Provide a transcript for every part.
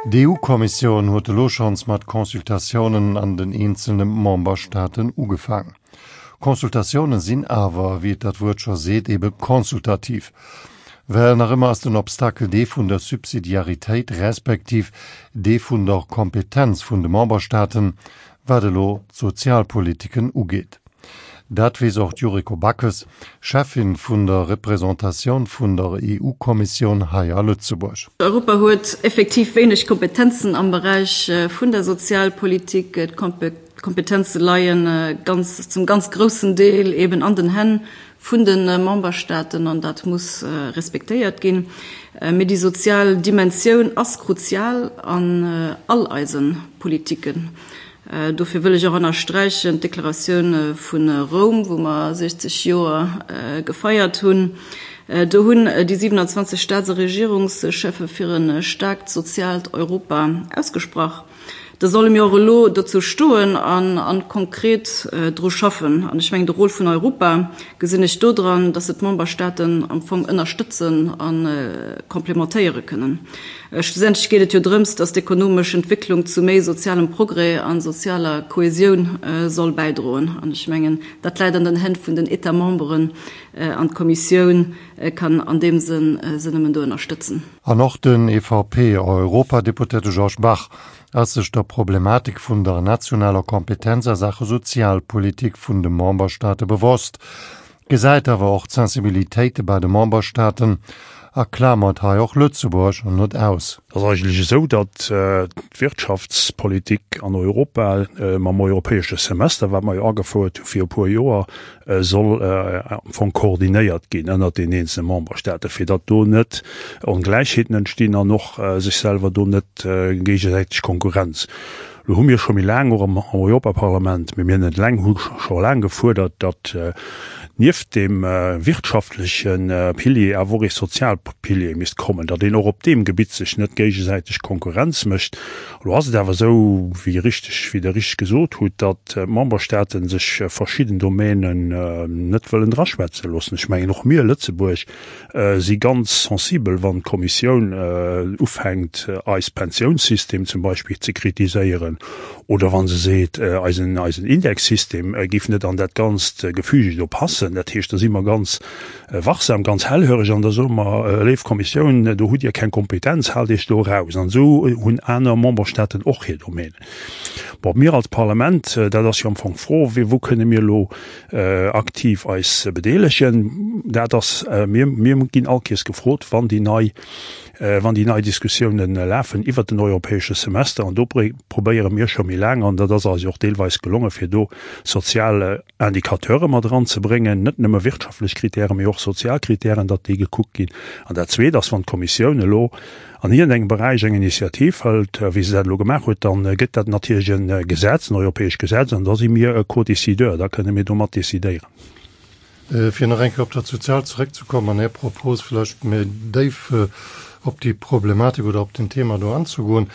D'EU-Kommissioun huet elo schonns mat Consultatiounen an den eenzelne Memberstaaten ugefaang. Consultatioune sinn awer, wéi et dat Wuert scho seet, ebe consultativ. Well nach ëmmer ass den Obstakel dee vun der Subsidiaritéit respektiv dee vun der Kompetenz vun de Memberstaaten, wat elo d'Sozialpolitiken ugeet. Dat weess och d'Yuriko Backes, Cheffin vun der Representatioun vun der EU-Kommissioun hei a Lëtzebuerg. Europa huet effektiv wéineg Kompetenzen am Beräich vun der Sozialpolitik. D'Kompetenze leie ganz, zum ganz groussen Deel eben an den Hänn vun de Memberstaaten an dat muss respektéiert ginn. Mee déi sozial Dimensioun ass kruzial an all eise Politiken. Dofir wëll ech och ënnersträichen d'Deklaratioun vu Roum, wou mer 60 Joer gefeiert hunn. Do hunn déi 27 Staats a Regierungscheffe fir e staarkt soziaalt Europa ausgesprach. Da solle mir och elo dozou stoen an konkret dru schaffen. An ech mengen, de Rôle vun Europa gesinn ech dodran, dass se d'Memberstaaten am Fong ënnerstëtzen a complementéiere kënnen. Schlussendlech geet et jo drëms, dass d'ekonomesch Entwécklung zu méi sozialem Progrès a sozialer Kohesioun soll bäidroen. An ech mengen, dat läit an den Hänn vun den États-memberen an d'Kommissioun kann an deem Sënn se nëmmen do ënnerstëtzen. An och den EVP-Europadeputéierte Georges Bach ass sech der Problematik vun der nationaler Kompetenz a Saache Sozialpolitik vun de Memberstaate bewosst. Gesäit awer och d'Sensibilitéite bei de Memberstaaten a klamert hei och Lëtzebuerg net aus. Et ass eigentlech esou, datt d'Wirtschaftspolitik an Europa mam europäesche Semester, wat mer jo agefouert hu fir e puer Joer, soll am Fong koordinéiert ginn ënnert den eenzele Memberstaaten, fir datt do net Ongläichheeten entstinn an och sech selwer do net géigesäiteg Konkurrenz. Lo hu mir scho méi laang och am Europaparlament, mee mir net eleng, hu scho laang gefuerdert, datt nieft deem wirtschaftleche Pilier awer och ee sozial Pilier misst kommen, datt een och op deem Gebitt sech net géigesäiteg Konkurrenz mécht. Elo ass et awer esou, wéi richteg, wéi Der richteg gesot hutt, datt d'Memberstaate sech verschidden Domänen net wëllen draschwätze loossen. Ech mengen, och mir, Lëtzebuerg, si ganz sensibel, wann d'Kommissioun ufänkt, eis Pensiounssystem zum Beispill ze kritiséieren oder wa se seet, eisen eisen Indexsystem géif net an dat ganzt Gefüge do passen. Dat heescht, da si mer ganz wachsam, ganz hellhöreg an da soe mer, Léif Kommissioun, do hutt Dir keng Kompetenz, haalt Iech do eraus. An esou hunn aner Memberstaaten och hir Domänen. Bon, mir als Parlament, dat ass jo am Fong d'Fro, wou kënne mir elo aktiv eis bedeelegen. Dat ass, mir, mir ginn all Kees gefrot, wann déi nei, wann déi nei Diskussiounen lafen iwwert den europäesche Semester. An do probéiere mir scho méi laang, an dat ass eis jo och deelweis gelongen, fir do sozial Indicateure mat eranzebréngen, net nëmme wirtschaftlech Kritären, mee och sozial Kritären, datt déi gekuckt ginn. An dat Zweet ass, wann d'Kommissioun elo an iergendengem Beräich eng Initiativ hëlt, wéi se dat elo gemaach huet, da gëtt dat natierlech e Gesetz, en europäescht Gesetz, an da si mir e Co-décideur, da kënne mir do mat decidéieren. Fir nach eng Kéier op dat Soziaalt zeréckzekommen an Är Propos vläicht méi déif op déi Problematik oder op den Thema do anzegoen.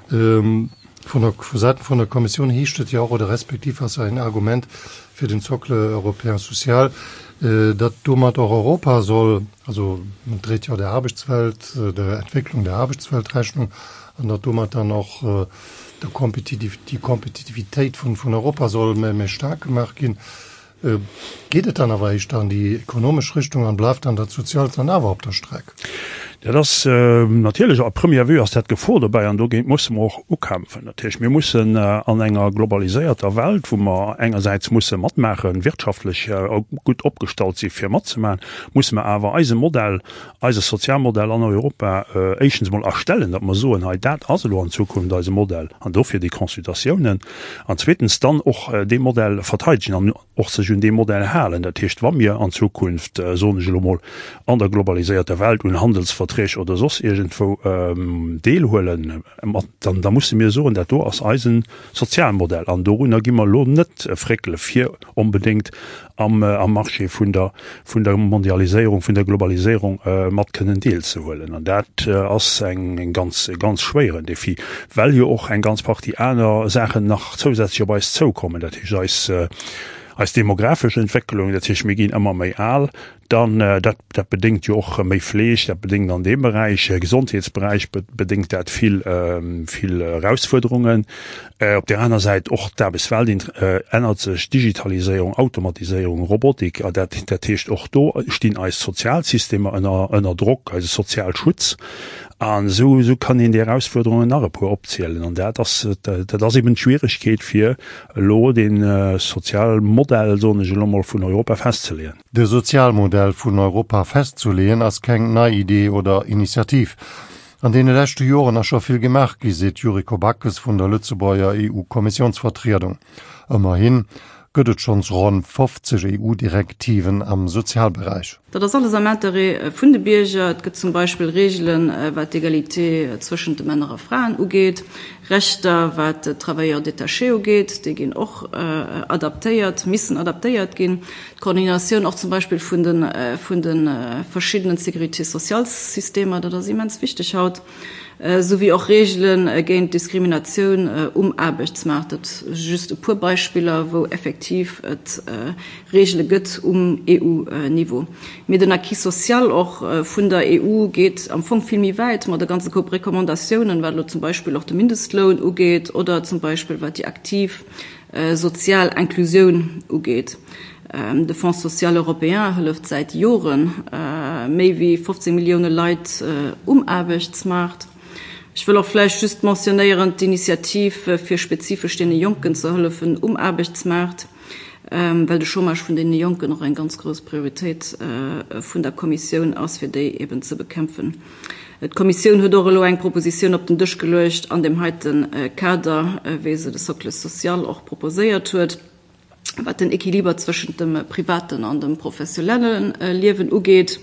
Vun der, vu Säiten vun der Kommissioun heescht et jo och, oder respektiv ass ein Argument fir den Socle européen social, datt domat och Europa soll, also en dréit jo der Aarbechtswelt, der Entwécklung der Aarbechtswelt Rechnung, an datt domat dann och der Kompetitiv, déi Kompetitivitéit vun, vun Europa soll méi, méi staark gemaach ginn. Geet et dann awer éischter an déi ekonomesch Richtung an bleift dann dat Soziaalt dann awer op der Streck? Dat ass natierlech, à première vue ass dat d'Gefor dobäi an dogéint musse mer och ukämpfen. Dat heescht, mir mussen an enger globaliséierter Welt, wou mer engersäits musse matmaachen, wirtschaftlech gutt opgestallt si fir matzemaachen, musse mer awer eise Modell, eise Sozialmodell an Europa éischtens emol erstellen, datt mer soen, hei dat ass elo an Zukunft eise Modell an dofir déi Consultatiounen, an zweetens dann och dee Modell verteidegen an och sech un dee Modell halen. Dat heescht, wa mir an Zukunft, soen ech elo mol, an der globaliséierter Welt un Handelsverträg oder soss iergendwou deelhuelen, dann da musse mir soen, dat do ass eisen Sozialmodell an dorunner gi mer elo net fréckele fir onbedéngt am Marché vun der vun der Mondialiséierung, vun der Globaliséierung mat kënnen deelzehuelen. An dat ass eng ganz, e ganz schwéieren Défi, well jo och eng ganz Partie aner Saachen nach zousätzlech op eis zoukommen. Dat heescht, eis. Eis demografesch Entwécklung, dat heescht mir ginn ëmmer méi al, dann dat dat bedéngt jo och méi Fleeg, dat bedéngt an deem Beräich, Gesondheetsberäich bedéngt dat vill vill Erausfuerderungen. Op där aner Säit och d'Aarbechtswelt ännert sech, Digitaliséierung, Automatiséierung, Robotik, a dat dat heescht och do stinn eis Sozialsystemer ënner ënner Drock, eise Sozialschutz. An esou esou kann een déi Erausfuerderungen nach e puer opzielen. An dat ass dat ass eben d'Schwieregkeet fir elo dee Sozialmodell, soen ech elo mol, vun Europa festzeleeën. De Sozialmodell vun Europa festzuleeën ass keng nei Idee oder Initiativ. An deene leschte Joren ass scho vill gemaach gi, seet d'Yuriko Backes vun der Lëtzebuerger EU-Kommissiounsvertriedung. Ëmmerhin gëtt et schonns ronn 50 EU-Direktiven am Sozialberäich. Dat ass alles am Interêt vun de Bierger. Et gëtt zum Beispill Reegelen, wat d'Egalité zwëschent de Männer a Fraen ugeet, Rechter, wat d'Travailleurs détachés ugeet, déi ginn och adaptéiert, missen adaptéiert ginn. D'Koordinatioun och zum Beispill vun de vun de verschiddenen Sécurité-sociales-Systemer, dat ass immens wichteg haut, souwéi och Reegele géint Diskriminatioun um Aarbechtsmaart. Dat si just e puer Beispiller, wou effektiv et Reegele gëtt um EU-Niveau. Mee den Acquis social och vun der EU geet am Fong vill méi wäit mat e ganze Koup Recommandatiounen, wat elo zum Beispill och de Mindestloun ugeet oder zum Beispill wat déi aktiv sozial Inclusioun ugeet. De Fonds social européen hëlleft säit Jore méi wéi 15 Millioune Leit um Aarbechtsmaart. Ech wëll och vläicht just mentionnéieren d'Initiativ fir spezifesch deene Jonken ze hëllefen um Aarbechtsmaart. well de Chômage vun deene Jonken och eng ganz grouss Prioritéit vun der Kommissioun ass, fir déi eben ze bekämpfen. D'Kommissioun huet och elo eng Propositioun op den Dësch geluecht an deem heite Kader, wéi se de Socle social och proposéiert huet, wat den Équiliber zwëschent dem privaten an dem professionelle Liewen ugeet.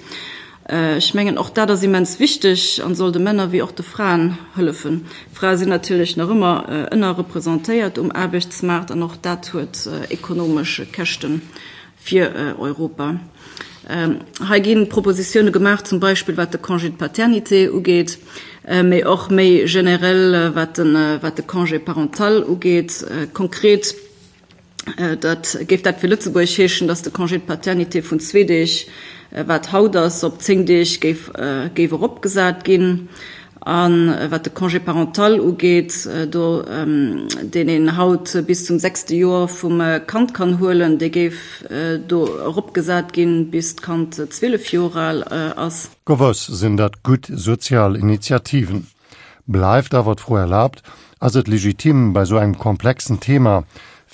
Ech mengen, och dat ass immens wichteg an soll de Männer wéi och de Fraen hëllefen. Frae sinn natierlech nach ëmmer ënnerrepresentéiert um Aarbechtsmaart an och dat huet ekonomesch Käschte fir Europa. Hei gi Propositioune gemaach, zum Beispill wat de Congé de paternité ugeet, mee och méi generell wat de Congé parental ugeet. Konkret Dat géif dat fir Lëtzebuerg heeschen, datt de Congé de paternité vun zwee Deeg, wat haut ass, op 10 Deeg géif géif eropgesat ginn. A wat de Congé parental ugeet, do deen een haut bis zum sechste Joer vum Kand kann huelen, dee géif do eropgesat ginn, bis d'Kand 12 Joer al ass. Gewëss sinn dat gutt sozial Initiativen. Bleift awer d'Fro erlaabt, Ass et legitim, bei esou engem komplexen Thema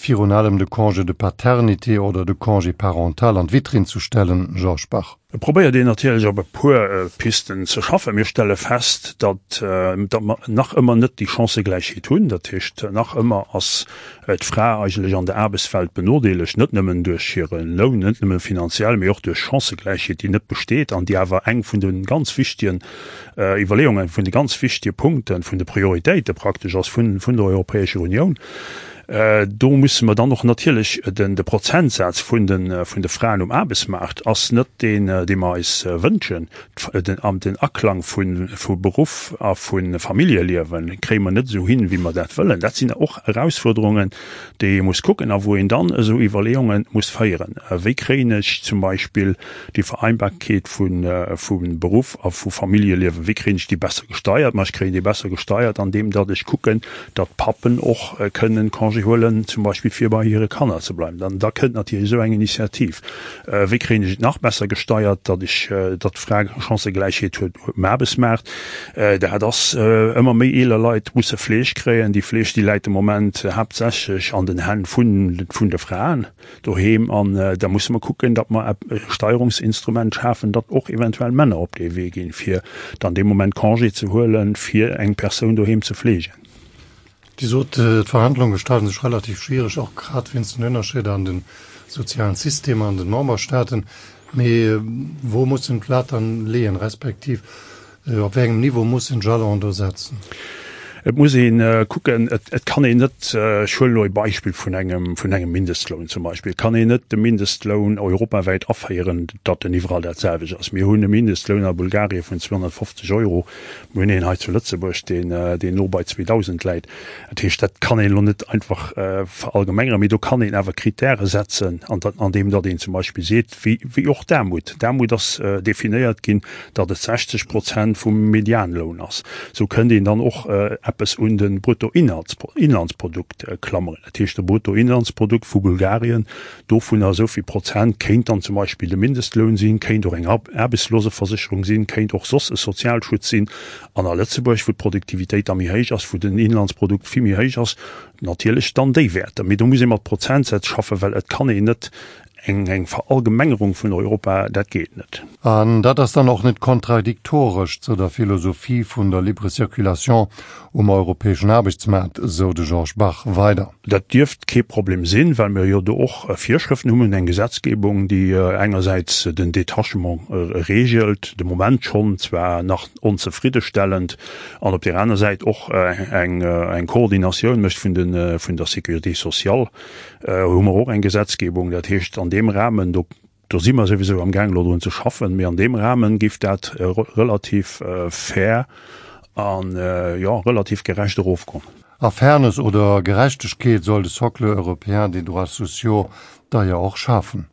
virun allem de Congé de paternité oder de Congé parental an d'Vitrinn ze stellen, Georges Bach? Et probéiert een natierlech op e puer Pisten ze schaffen. Mir stelle fest, datt mer nach ëmmer net déi Chancëgläichheet hunn. Dat heescht, nach ëmmer ass d'Fra eigentlech an der Aarbechtswelt benodeelegt, net nëmmen duerch hire Loun, net nëmme finanziell, mee och duerch Chancëgläichheet, déi net besteet an déi awer eng vun de ganz wichtegen Iwwerleeungen, vun de ganz wichtege Punkten, vun de Prioritéite praktesch ass vun der Europäescher Unioun. Do musse mer dann och natierlech den de Prozentsaz vun de vun de Fraen um Aarbechtsmaart ass net deen, dee mer eis wënschen. Den an den Aklang vu vu Beruff a vu Familljeliewe kréie mer net esou hin, wéi mer dat wëllen. Dat sinn och Erausfuerderungen, déi ee muss kucken a wou een dann esou Iwwerleeunge muss féieren. Wéi kréien ech zum Beispill déi Vereinbarkeet vu Beruff a vu Familljeliewen, wéi kréien ech déi besser gesteiert? Ma ech kréien déi besser gesteiert, andeem datt ech kucken, datt d'Pappen och kënnen Congé huelen, zum Beispill fir bei hire Kanner ze bleiwen. Dann da kënnt natierlech esou eng Initiativ. Wéi kréien ech et nach besser gesteiert, datt ech, datt d'Fra Chancëgläichheet huet um Aarbechtsmaart? Dat ass, ëmmer méi eeler Leit musse Fleeg kréien. Déi Fleeg, déi läit de Moment haaptsächlech an den Hänn vun de Fraen. Doheem an da musse mer kucken, datt mer e Steierungsinstrument schafen, datt och eventuell Männer op dee Wee ginn, fir dann dee Moment Congé ze huelen, fir eng Persoun doheem ze fleegen. Dir sot, d'Verhandlunge gestalten sech relativ schwiereg, och grad wéinst den Ënnerscheeder an de sozialen Systemer an den Memberstaaten. Mee wou mussen d'Lat dann leeën, respektiv Op wéi engem Niveau muss en Jalon do setzen? Et muss ee kucken, et kann een net, ech huelen elo e Beispill vun engem, vun engem Mindestloun zum Beispill, et kann een net de Mindestloun europawäit aféieren, datt en iwwerall dat selwecht ass. Mir hunn e Mindestloun a Bulgarien vun 250 Euro, mir hunn een hei zu Lëtzebuerg, deen, deen no bei 2.000 läit. Dat heescht, dat kann een elo net einfach verallgemengeren, mee do kann een awer Kritäre setzen, andeem datt een zum Beispill seet, wéi, wéi och d'Aarmut, d'Aarmut ass definéiert ginn, datt et 60 Prozent vum Medianloun ass. Esou kënnt een dann och eppes un de Bruttoinlandsprodukt klammeren. Dat heescht, de Bruttoinlandsprodukt vu Bulgarien, dovunner esou vill Prozent kéint dann zum Beispill de Mindestloun sinn, kéint och eng Aarbechtsloseversécherung sinn, kéint och soss e Sozialschutz sinn. An a Lëtzebuerg, wou d'Produktivitéit da méi héich ass, wou den Inlandsprodukt vill méi héich ass, natierlech dann déi Wäerter. Mee do muss ee mat Prozentsätz schaffen, well et kann een net eng eng Verallgemengerung vun Europa, dat geet net. An dat ass dann och net kontradiktoresch zu der Philosophie vun der libre circulation um europäeschen Aarbechtsmaart, sou de Georges Bach weider. Dat dierft kee Problem sinn, well mir jo do och Virschrëften hunn. Mir hunn eng Gesetzgebung, déi engersäits den Détachement regelt, de Moment schonn, zwar nach onzefriddestellend, an op där aner Säit och eng Koordinatioun mécht vun der Sécurité sociale. Hu mer och eng Gesetzgebung. Dat heescht, an deem Rahmen, do, do si mer souwisou amgaang elo drun ze schaffen, mee an deem Rahmen géif dat relativ fair an, jo, relativ gerecht erofgoen. A Fairness oder Gerechtegkeet soll de Socle européen des droits sociaux da jo och schafen.